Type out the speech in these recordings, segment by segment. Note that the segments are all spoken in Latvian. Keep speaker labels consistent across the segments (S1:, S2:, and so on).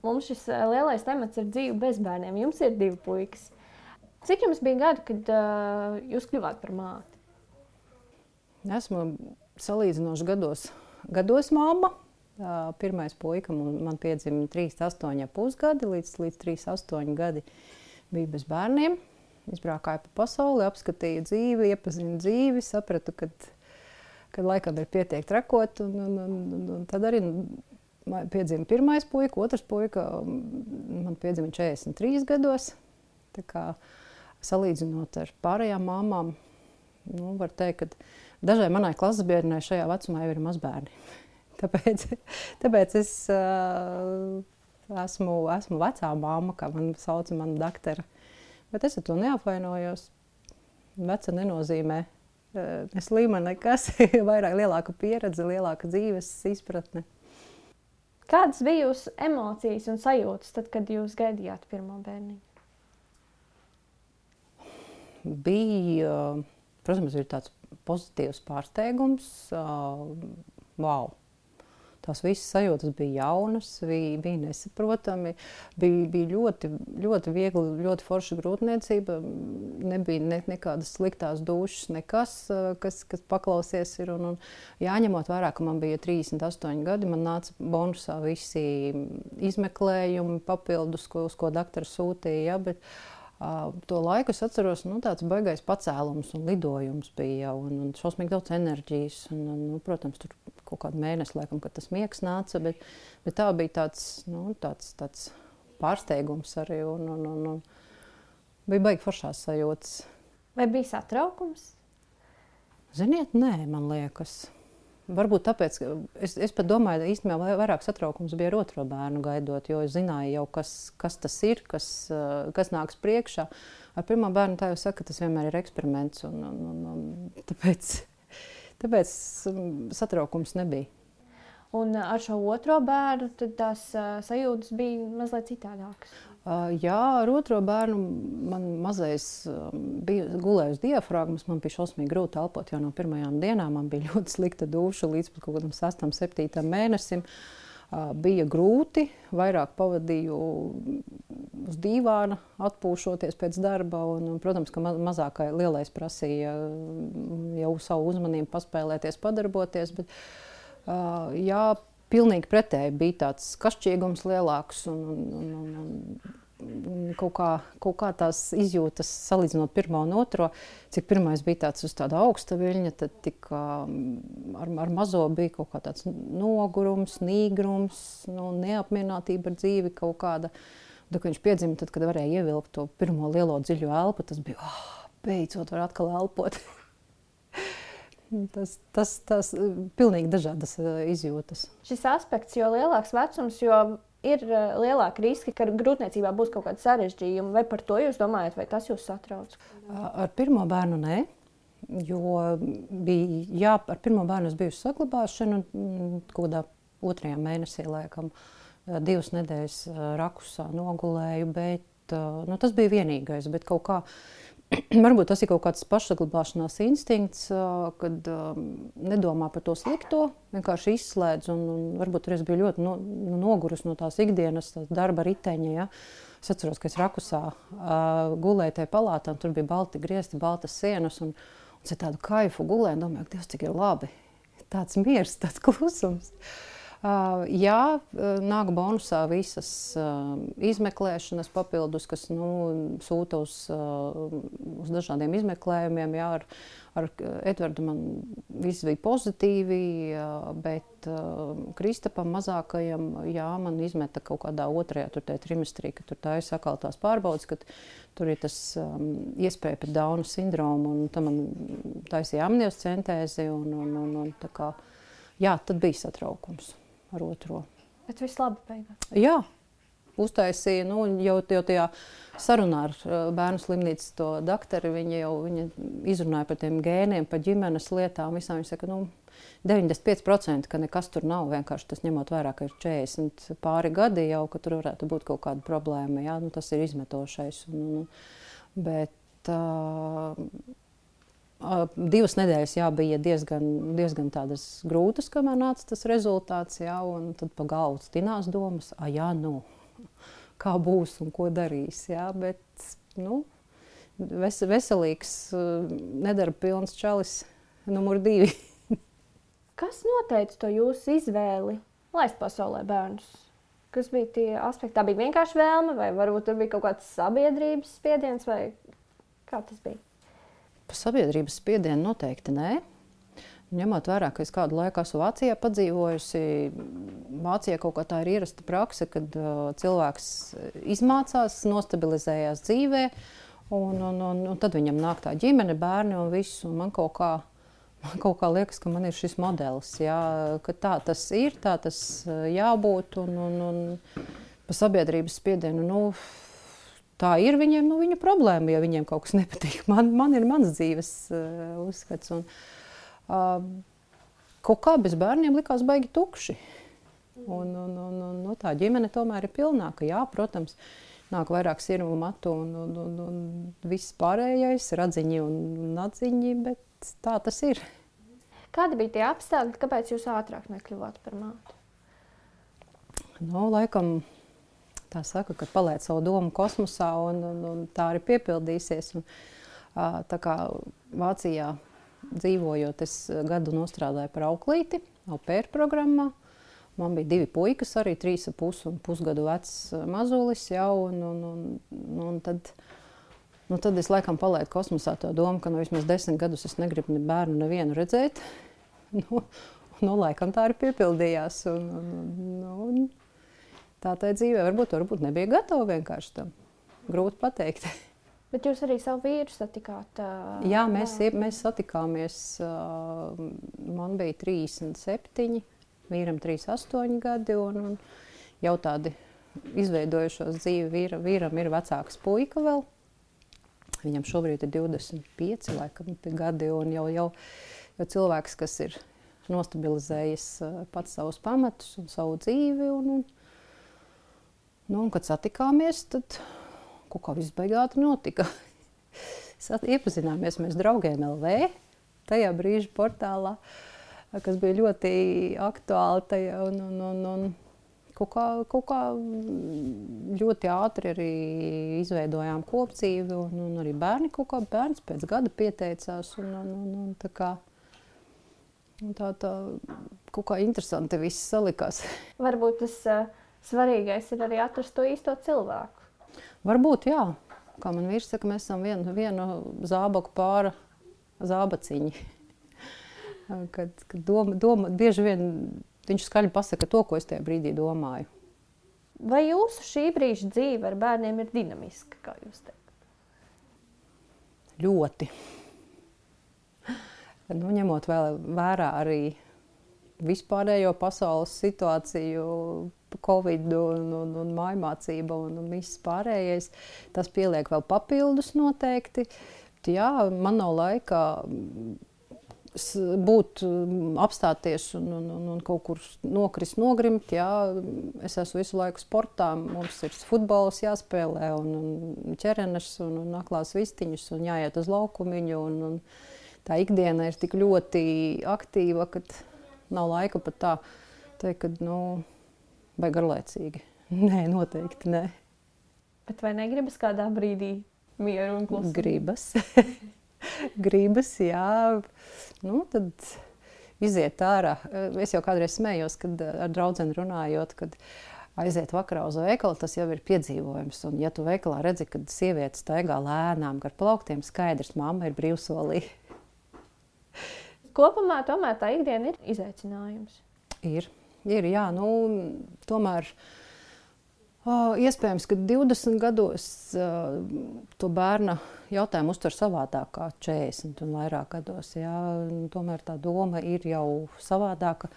S1: mums šis lielais temats ir dzīve bez bērniem. Jums ir 2 puikas. Cik jums bija gadi, kad jūs kļuvāt par māti?
S2: Esmu salīdzinoši gados mamma. Pirmais puika man piedzima 38,5 gadi, līdz 38 gadi bija bez bērniem. Izbraucāju pa pasauli, apskatīju dzīvi, iepazinu dzīvi, sapratu, kad laikam ir pietiek trakot. Un tad arī piedzima pirmais puika, otrs puika man piedzima 43 gados. Tā kā salīdzinot ar pārējām māmām, var teikt, ka dažai manai klases biedrenei šajā vecumā jau ir mazbērni. Tāpēc es esmu vecā mamma, kā man sauca mana daktara. Bet es ar to neapvainojos. Veca nenozīmē ne slima nekas, vairāk lielāka pieredze, lielāka dzīves izpratne.
S1: Kādas bija jūsu emocijas un sajūtas tad, kad jūs gaidījāt pirmo bērniņu?
S2: Bija, protams, ir tāds pozitīvs pārsteigums. Wow! Tās visas sajūtas bija jaunas, bija nesaprotami, bija ļoti, ļoti viegli, ļoti forša grūtniecība. Nebija nekādas sliktās dušas, nekas, kas paklausies ir. Un jāņemot vērā, ka man bija 38 gadi, man nāca bonusā visi izmeklējumi, papildus, uz ko daktari sūtīja. Ja, bet to laiku es atceros, tāds baigais pacēlums un lidojums bija un šausmīgi daudz enerģijas. Protams, tur kaut kādu mēnesi, laikam, kad tas miegs nāca, bet tā bija tāds pārsteigums arī un bija baigi foršās sajūtas.
S1: Vai bija satraukums?
S2: Ziniet, nē, man liekas. Varbūt tāpēc, ka es pat domāju, īstenībā vairāk satraukums bija ar otro bērnu gaidot, jo es zināju jau, kas tas ir, kas nāks priekšā. Ar pirmo bērnu tā jau saka, tas vienmēr ir eksperiments, un tāpēc satraukums nebija. Un
S1: ar šo otro bērnu tad tās sajūtas bija mazliet citādākas?
S2: Jā, ar otro bērnu man mazais bija gulējusi diafragmas, man bija šausmīgi grūti elpot jau no pirmajām dienām, man bija ļoti slikta duša līdz pat kaut kādam 6. 7. mēnesim. Bija grūti, vairāk pavadīju uz dīvāna, atpūšoties pēc darba, un protams, ka mazākai lielais prasīja jau savu uzmanību paspēlēties, padarboties, bet jā, pilnīgi pretēji bija tāds kašķīgums lielāks un kaut kā tās izjūtas salīdzinot pirmo un otro, cik pirmais bija tāds uz tāda augsta viļņa, tad ar mazo bija kaut kā tāds nogurums, nīgrums, neapmierinātība ar dzīvi kaut kāda. Tad, kad viņš piedzima, tad, kad varēja ievilkt to pirmo lielo dziļo elpu, tas bija, beidzot var atkal elpot. Tas pilnīgi dažādas izjūtas.
S1: Šis aspekts, jo lielāks vecums, jo ir lielāki riski, ka grūtniecībā būs kaut kāda sarežģījuma. Vai par to jūs domājat, vai tas jūs satrauc?
S2: Ar pirmo bērnu nē, jo ar pirmo bērnu es biju uz saglabāšanu kaut kādā 2. mēnesī, laikam, 2 nedēļas rakusā nogulēju, bet tas bija vienīgais, bet kaut kā varbūt tas ir kaut kāds pašsaglabāšanās instinkts, kad nedomā par to slikto, vienkārši izslēdz. Un varbūt arī es biju ļoti nogurus no tās ikdienas, tās darba riteņa. Ja. Es atceros, ka es rakusā gulēju tajā palātā, un tur bija balti griezti, baltas sienas. Un es tādu kaifu gulēju, domāju, ka Dievs, cik ir labi. Tāds miers, tāds klusums. Jā, nāk bonusā visas izmeklēšanas papildus, kas sūta uz dažādiem izmeklējumiem. Jā, ar Edvardu man viss bija pozitīvi, bet Kristapam mazākajam, jā, man izmeta kaut kādā 2. trimestrī, kad tur tā ir sakaltās pārbaudas, kad tur ir tas iespēja pret Dauna sindromu, un tam man taisīja amniocentēzi, un tā kā, jā, tad bija satraukums ar otro.
S1: Bet viss labi beigās?
S2: Jā, uztaisīja, jau tajā sarunā ar bērnu slimnīcas to daktari, viņa izrunāja par tiem gēniem, par ģimenes lietām, visām. Viņa saka, 95%, ka nekas tur nav, vienkārši tas ņemot vērā, ka ir 40 pāri gadi jau, ka tur varētu būt kaut kāda problēma, jā, tas ir izmetošais. Bet 2 nedēļas, jā, bija diezgan tādas grūtas, kamēr nāca tas rezultāts, jā, un tad pa galvu stinās domas, kā būs un ko darīs. Jā, bet veselīgs, nedarba pilns čalis numur 2.
S1: Kas noteica to jūsu izvēli laist pasaulē bērnus? Kas bija tie aspekti? Tā bija vienkārši vēlme, vai varbūt tur bija kaut kāds sabiedrības spiediens, vai kā tas bija?
S2: Pa sabiedrības spiedienu noteikti nē. Ņemot vērā, ka es kādu laiku esmu Vācijā padzīvojusi, Vācijā kaut kā tā ir ierasta prakse, kad cilvēks izmācās, nostabilizējās dzīvē, un tad viņam nāk tā ģimene, bērni un viss, un man kaut kā liekas, ka man ir šis modelis, jā, ka tā tas ir, tā tas jābūt, un pa sabiedrības spiedienu, tā ir viņiem, viņa problēma, ja viņiem kaut kas nepatīk. Man ir mans dzīves uzskats, un kaut kā bez bērniem likās baigi tukši. Un tā ģimene tomēr ir pilnāka. Jā, protams, nāk vairāk sirmu matu un viss pārējais, radziņi un atziņi, bet tā tas ir.
S1: Kādi bija tie apstākļi, kāpēc jūs ātrāk nekļuvāt par māti?
S2: Laikam tā saka, ka paliec savu domu kosmosā un tā arī piepildīsies. Un, tā kā Vācijā dzīvojot, es gadu nostrādāju par auklīti, au pair programmā. Man bija 2 puikas, arī 3,5 un pusgadu vecs mazulis jau, un tad es laikam palaidu kosmosā to domu, ka vismaz 10 gadus es negribu ne bērnu nevienu redzēt. Laikam tā arī piepildījās. Un tā dzīvē varbūt nebija gatava vienkārši tam. Grūti pateikt.
S1: Bet jūs arī savu vīru satikāt?
S2: Jā, mēs satikāmies. Man bija 37, vīram 38 gadi, un jau tādi izveidojušos dzīvi. Vīram ir vecāks puika vēl. Viņam šobrīd ir 25 laikam, gadi, un jau cilvēks, kas ir nostabilizējis pats savus pamatus un savu dzīvi. Un kad satikāmies, tad kaut kā viss beigāti notika. Iepazināmies mēs Draugiem LV, tajā brīža portālā, kas bija ļoti aktuāli tajā, un kaut kā ļoti ātri arī izveidojām kopdzīvi, un arī bērns pēc gada pieteicās, un tā kā tā kaut kā interesanti viss salikās.
S1: Varbūt tas svarīgais ir arī atrast to īsto cilvēku.
S2: Varbūt, jā. Kā man vīrs saka, mēs esam vienu zābaku pāra zābaciņi. Kad bieži vien viņš skaļi pasaka to, ko es tajā brīdī domāju.
S1: Vai jūsu šī brīža dzīve ar bērniem ir dinamiska, kā jūs teikt?
S2: Ļoti. Ņemot vērā arī vispārējo pasaules situāciju, Covid un mājmācība un viss pārējais, tas pieliek vēl papildus noteikti. Jā, man nav laika apstāties un kaut kur nogrimt. Jā, es esmu visu laiku sportā, mums ir futbols jāspēlē un ķerenes un aklās vistiņus un jāiet uz laukumiņu. Un tā ikdiena ir tik ļoti aktīva, ka nav laika pat tā teikt, ka, vai garlaicīgi. Nē, noteikti nē.
S1: Bet vai negribas kādā brīdī mieru un klusumu?
S2: Gribas, jā. Tad iziet ārā. Es jau kādreiz smējos, kad ar draudzeni runājot, kad aiziet vakarā uz veikalu, tas jau ir piedzīvojums. Un ja tu veikalā redzi, kad sievietes staigā lēnām gar plauktiem, skaidrs, mamma ir brīvsolī.
S1: Kopumā tomēr tā ikdiena ir izaicinājums.
S2: Ir, jā. Tomēr iespējams, ka 20 gados to bērna jautājumu uztver savādāk kā 40 un vairāk gados. Jā. Tomēr tā doma ir jau savādāka.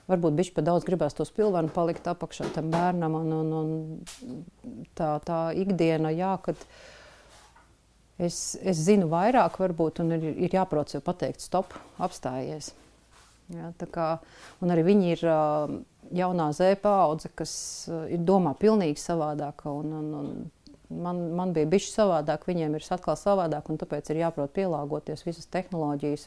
S2: Varbūt bišķi pa daudz gribās to spilvenu palikt apakšā tam bērnam. Un tā ikdiena, jā, kad es zinu vairāk varbūt un ir jāprot sev pateikt stop, apstājies. Jā, un arī viņi ir jaunā Z paudze, kas ir domā pilnīgi savādāka. Man bija bišķi savādāk, viņiem ir atkal savādāk, un tāpēc ir jāprot pielāgoties visas tehnoloģijas,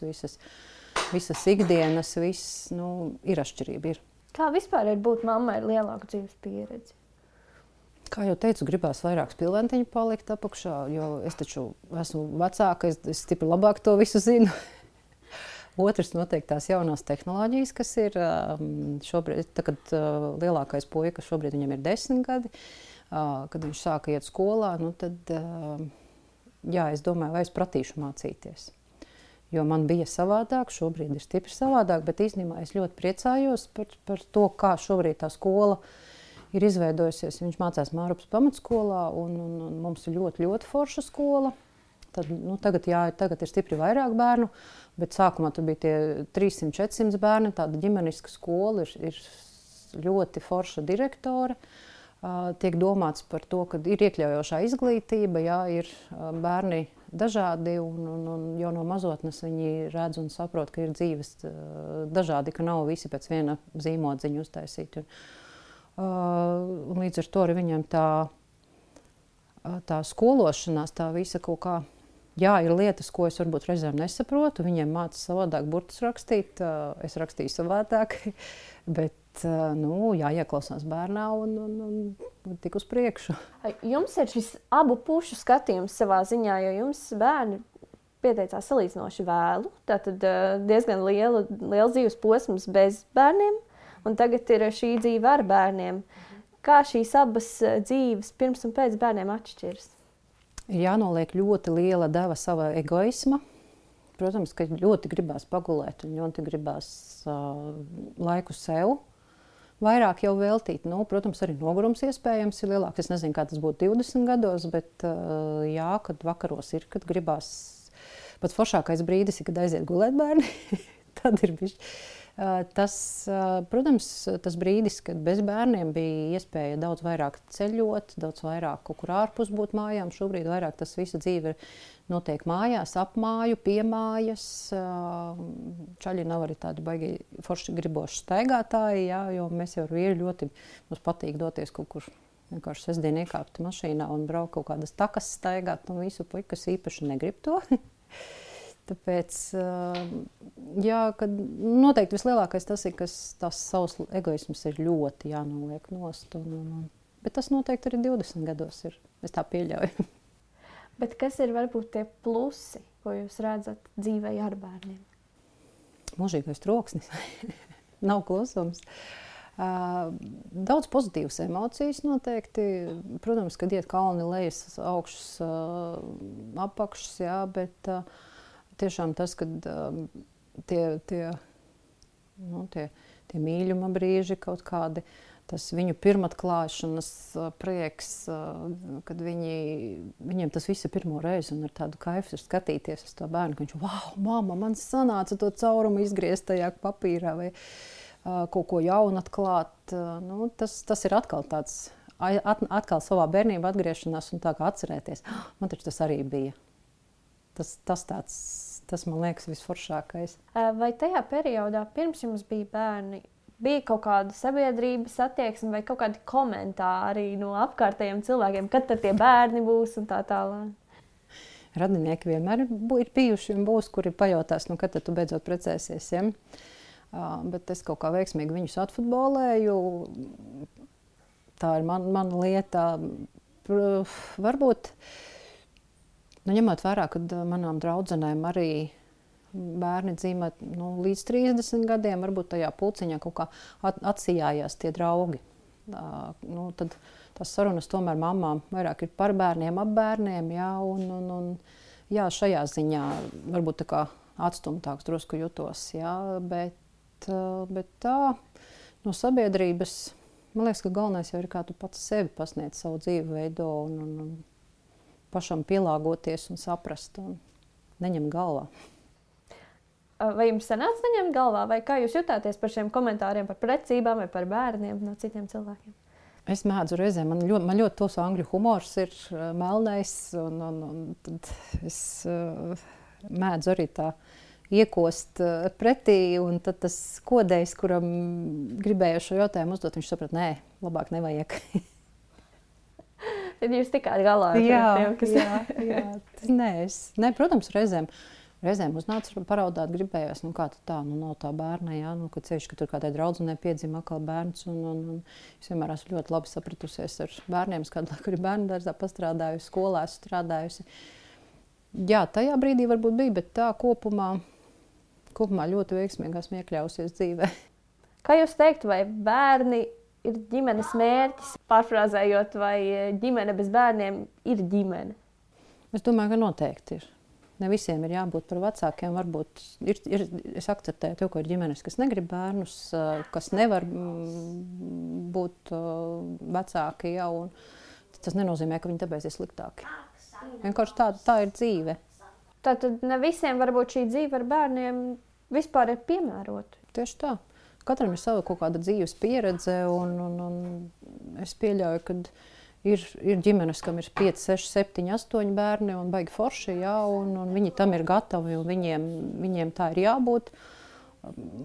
S2: visas ikdienas, ir atšķirība. Ir.
S1: Kā vispār ir būt mammai ar lielāku dzīves pieredzi?
S2: Kā jau teicu, gribās vairāk spilventiņu palikt apakšā, jo es taču esmu vecāka, es stipri labāk to visu zinu. Otrs noteikti tās jaunās tehnoloģijas, kas ir šobrīd, kad lielākais puika šobrīd viņam ir 10 gadi, kad viņš sāka iet skolā, nu tad, jā, es domāju, vai es pratīšu mācīties. Jo man bija savādāk, šobrīd ir stipri savādāk, bet īstenībā es ļoti priecājos par to, kā šobrīd tā skola ir izveidojusies. Viņš mācās Mārupas pamatskolā, un mums ir ļoti, ļoti forša skola. Tad, nu, tagad ir stipri vairāk bērnu, bet sākumā tur bija tie 300-400 bērni. Tāda ģimeniska skola ir ļoti forša direktore. Tiek domāts par to, ka ir iekļaujošā izglītība, jā, ir bērni dažādi, un jau no mazotnes viņi redz un saprot, ka ir dzīves dažādi, ka nav visi pēc viena zīmodziņa uztaisīti. Un līdz ar to arī viņam tā skološanās, tā visa kaut kā, jā, ir lietas, ko es varbūt reizēm nesaprotu, viņiem māca savādāk burtus rakstīt, es rakstīju savādāk, bet, nu, jāieklausās bērnā un tik uz priekšu.
S1: Jums ir šis abu pušu skatījums savā ziņā, jo jums bērni pieteicās salīdzinoši vēlu, tātad diezgan liels dzīves posms bez bērniem, un tagad ir šī dzīve ar bērniem. Kā šīs abas dzīves pirms un pēc bērniem atšķiras?
S2: Ir jānoliek ļoti liela deva sava egoisma. Protams, ka ļoti gribās pagulēt un ļoti gribās laiku sev vairāk jau veltīt. Nu, protams, arī nogurums iespējams ir lielāks. Es nezinu, kā tas būtu 20 gados, bet jā, kad vakaros ir, kad gribās. Pats foršākais brīdis ir, kad aiziet gulēt bērni. Tad ir bišķi. Protams, tas brīdis, kad bez bērniem bija iespēja daudz vairāk ceļot, daudz vairāk kaut kur ārpus būt mājām. Šobrīd vairāk tas visa dzīve notiek mājās, ap māju, pie mājas. Čaļi nav arī tādi baigi forši griboši staigātāji, jā, jo mēs jau vīri ļoti mums patīk doties kaut kur vienkārši sestdien iekāpt mašīnā un braukt kaut kādas takas staigāt, un visu puikas īpaši negrib to. Tāpēc, jā, kad noteikti vislielākais tas ir, ka tās savs egoisms ir ļoti jānoliek nost. Bet tas noteikti arī 20 gados ir. Es tā pieļauju.
S1: Bet kas ir varbūt tie plusi, ko jūs redzat dzīvē ar bērniem?
S2: Mūžīgais troksnis. Nav klusums. Daudz pozitīvas emocijas noteikti. Protams, kad iet kalni lejas, augšas, apakšas, jā, bet tiešām tas, kad tie mīļuma brīži kaut kādi, tas viņu pirmatklāšanas prieks, kad viņiem tas viss ir pirmo reizi un ar tādu kaifu ir skatīties uz to bērnu, ka viņš, wow, mamma, man sanāca to caurumu izgriezt tajā papīrā vai kaut ko jaunu atklāt. Nu, tas ir atkal tāds, atkal savā bērnībā atgriešanās un tā kā atcerēties. Man taču tas arī bija. Tas man liekas visforšākais.
S1: Vai tajā periodā, pirms jums bija bērni, bija kaut kāda sabiedrības attieksme vai kaut kādi komentāri no apkārtējiem cilvēkiem, kad tad tie bērni būs un tā tālāk?
S2: Radinieki vienmēr ir bijuši un būs, kuri pajautās, nu, kad tad tu beidzot precēsies, ja? Bet es kaut kā veiksmīgi viņus atfutbolēju. Tā ir mana lieta. Varbūt ņemot vērā, kad manām draudzenēm arī bērni dzīvo līdz 30 gadiem, varbūt tajā pulciņā kaut kā atsijājās tie draugi. Tad tās sarunas tomēr mamām vairāk ir par bērniem, ap bērniem, jā, un jā, šajā ziņā varbūt tā kā atstumtāks drusku jutos, jā, bet tā no sabiedrības, man liekas, ka galvenais jau ir, kā tu pats sevi pasniedz savu dzīvi veido un pašam pielāgoties un saprast un neņemt galvā.
S1: Vai jums sanāca neņemt galvā, vai kā jūs jutāties par šiem komentāriem par precībām vai par bērniem no citiem cilvēkiem?
S2: Es mēdzu reizēm, man ļoti tos angļu humors ir melnais, un tad es mēdzu arī tā iekost pretī, un tad tas kodējs, kuram gribēju šo jautājumu uzdot, viņš saprat, nē, labāk nevajag.
S1: Tad jūs tikāt galā ar tiem, kas...
S2: Jā. Nē, protams, Reizēm uznāca paraudāt, gribējās, kā tā, nav tā bērna, jā, kad ceļš, ka tur kādai draudzenei piedzima atkal bērns, un es vienmēr esmu ļoti labi sapratusies ar bērniem, kādu laiku ir bērnu dārzā pastrādājusi, skolā esmu strādājusi. Jā, tajā brīdī varbūt bija, bet tā kopumā ļoti veiksmīgi esmu iekļausies dzīvē.
S1: Kā jūs teiktu, vai bērni ir ģimenes mērķis, pārfrāzējot, vai ģimene bez bērniem ir ģimene?
S2: Es domāju, ka noteikti ir. Ne visiem ir jābūt par vecākiem. Varbūt es akceptēju to, ka ir ģimenes, kas negrib bērnus, kas nevar būt vecāki jau. Tas nenozīmē, ka viņi tāpēc ir sliktāki. Vienkārši tā ir dzīve.
S1: Tātad ne visiem varbūt šī dzīve ar bērniem vispār ir piemērota.
S2: Tieši tā. Katram ir sava kaut kāda dzīves pieredze, un es pieļauju, ka ir ģimenes, kam ir 5, 6, 7, 8 bērni un baigi forši, jā, un viņi tam ir gatavi, un viņiem tā ir jābūt.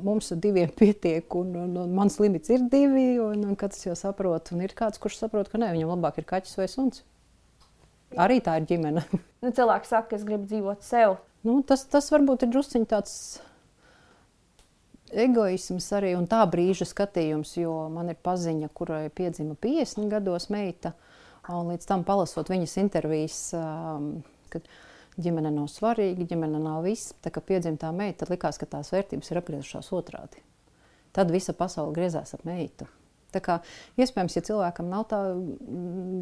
S2: Mums ar 2 pietiek, un mans limits ir 2, un katrs jau saprot. Un ir kāds, kurš saprot, ka nē, viņam labāk ir kaķis vai suns. Arī tā ir ģimene.
S1: Cilvēki saka, ka es gribu dzīvot sev.
S2: Tas varbūt ir drusciņ tāds egoisms arī un tā brīža skatījums, jo man ir paziņa, kurai piedzima 50 gados meita, un līdz tam palasot viņas intervijas, kad ģimene nav svarīga, ģimene nav viss, tā kā piedzima tā meita, tad likās, ka tās vērtības ir apgriezušās otrādi. Tad visa pasaule griezās ap meitu. Tā kā iespējams, ja cilvēkam nav tā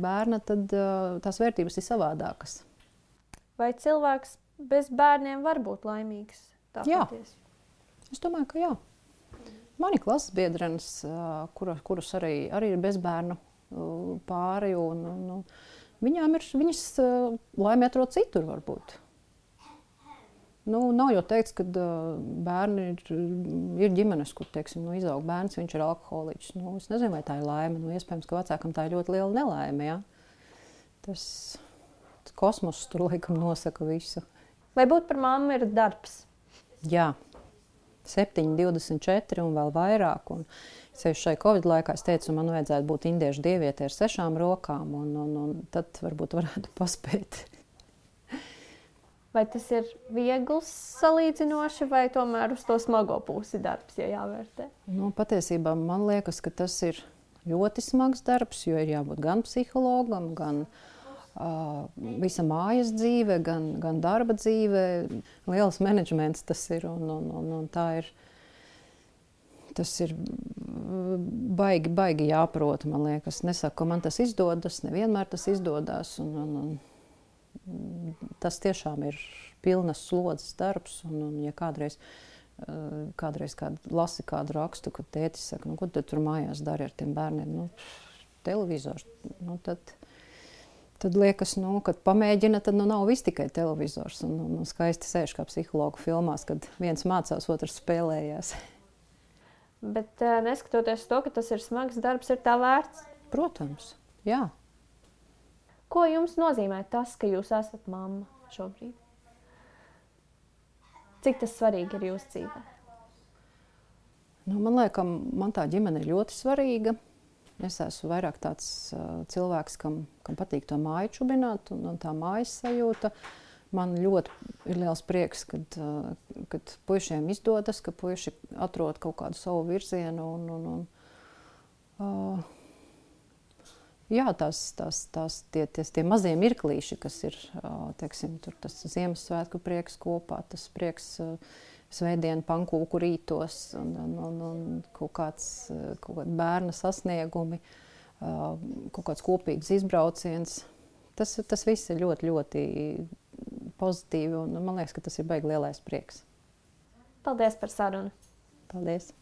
S2: bērna, tad tās vērtības ir savādākas. Vai
S1: cilvēks bez bērniem var būt laimīgs?
S2: Jā. Es domāju, ka jā. Mani klases biedrenes, kuras arī ir bezbērnu pāri, un viņas laimi atrod citur varbūt. Nav jau teikts, ka bērni ir ģimenes, kur, teiksim, izaug bērns, viņš ir alkoholiķis. Es nezinu, vai tā ir laime. Iespējams, ka vecākam tā ir ļoti liela nelaime, jā. Tas kosmos tur laikam nosaka visu.
S1: Vai būt par mammu ir darbs?
S2: Jā. 7, 24 un vēl vairāk. Un šai Covid laikā es teicu, man vajadzētu būt indiešu dievietē ar 6 rokām, un tad varbūt varētu paspēt.
S1: Vai tas ir viegls salīdzinoši, vai tomēr uz to smago pusi darbs, ja jāvērtē?
S2: Patiesībā man liekas, ka tas ir ļoti smags darbs, jo ir jābūt gan psihologam, gan visa mājas dzīve, gan darba dzīve. Liels menedžments tas ir, un tā ir. Tas ir baigi jāprot, man liekas. Nesaku, ka man tas izdodas, nevienmēr tas izdodas. Tas tiešām ir pilnas slodzes darbs. Un ja kādreiz lasi kādu rakstu, kad tētis saka, ko tu tur mājās dari ar tiem bērniem? Televizors. Tad liekas, kad pamēģina, tad nav viss tikai televizors. Un skaisti sēž kā psihologu filmās, kad viens mācās, otrs spēlējās.
S1: Bet neskatoties to, ka tas ir smags darbs, ir tā vērts?
S2: Protams, jā.
S1: Ko jums nozīmē tas, ka jūs esat mamma šobrīd? Cik tas svarīgi ir jūsu dzīvē?
S2: Man liekas, man tā ģimene ir ļoti svarīga. Es esmu vairāk tāds cilvēks, kam patīk to māju čubināt un tā mājas sajūta. Man ļoti ir liels prieks, kad puišiem izdodas, ka puiši atrod kaut kādu savu virzienu. Jā, tie mazie mirklīši, kas ir, teiksim, tur tas Ziemassvētku prieks kopā, tas prieks svētdienu pankūku rītos un kaut kādi bērna sasniegumi, kaut kāds kopīgs izbrauciens. Tas viss ir ļoti, ļoti pozitīvi, un man liekas, ka tas ir baigi lielais prieks.
S1: Paldies par sarunu.
S2: Paldies.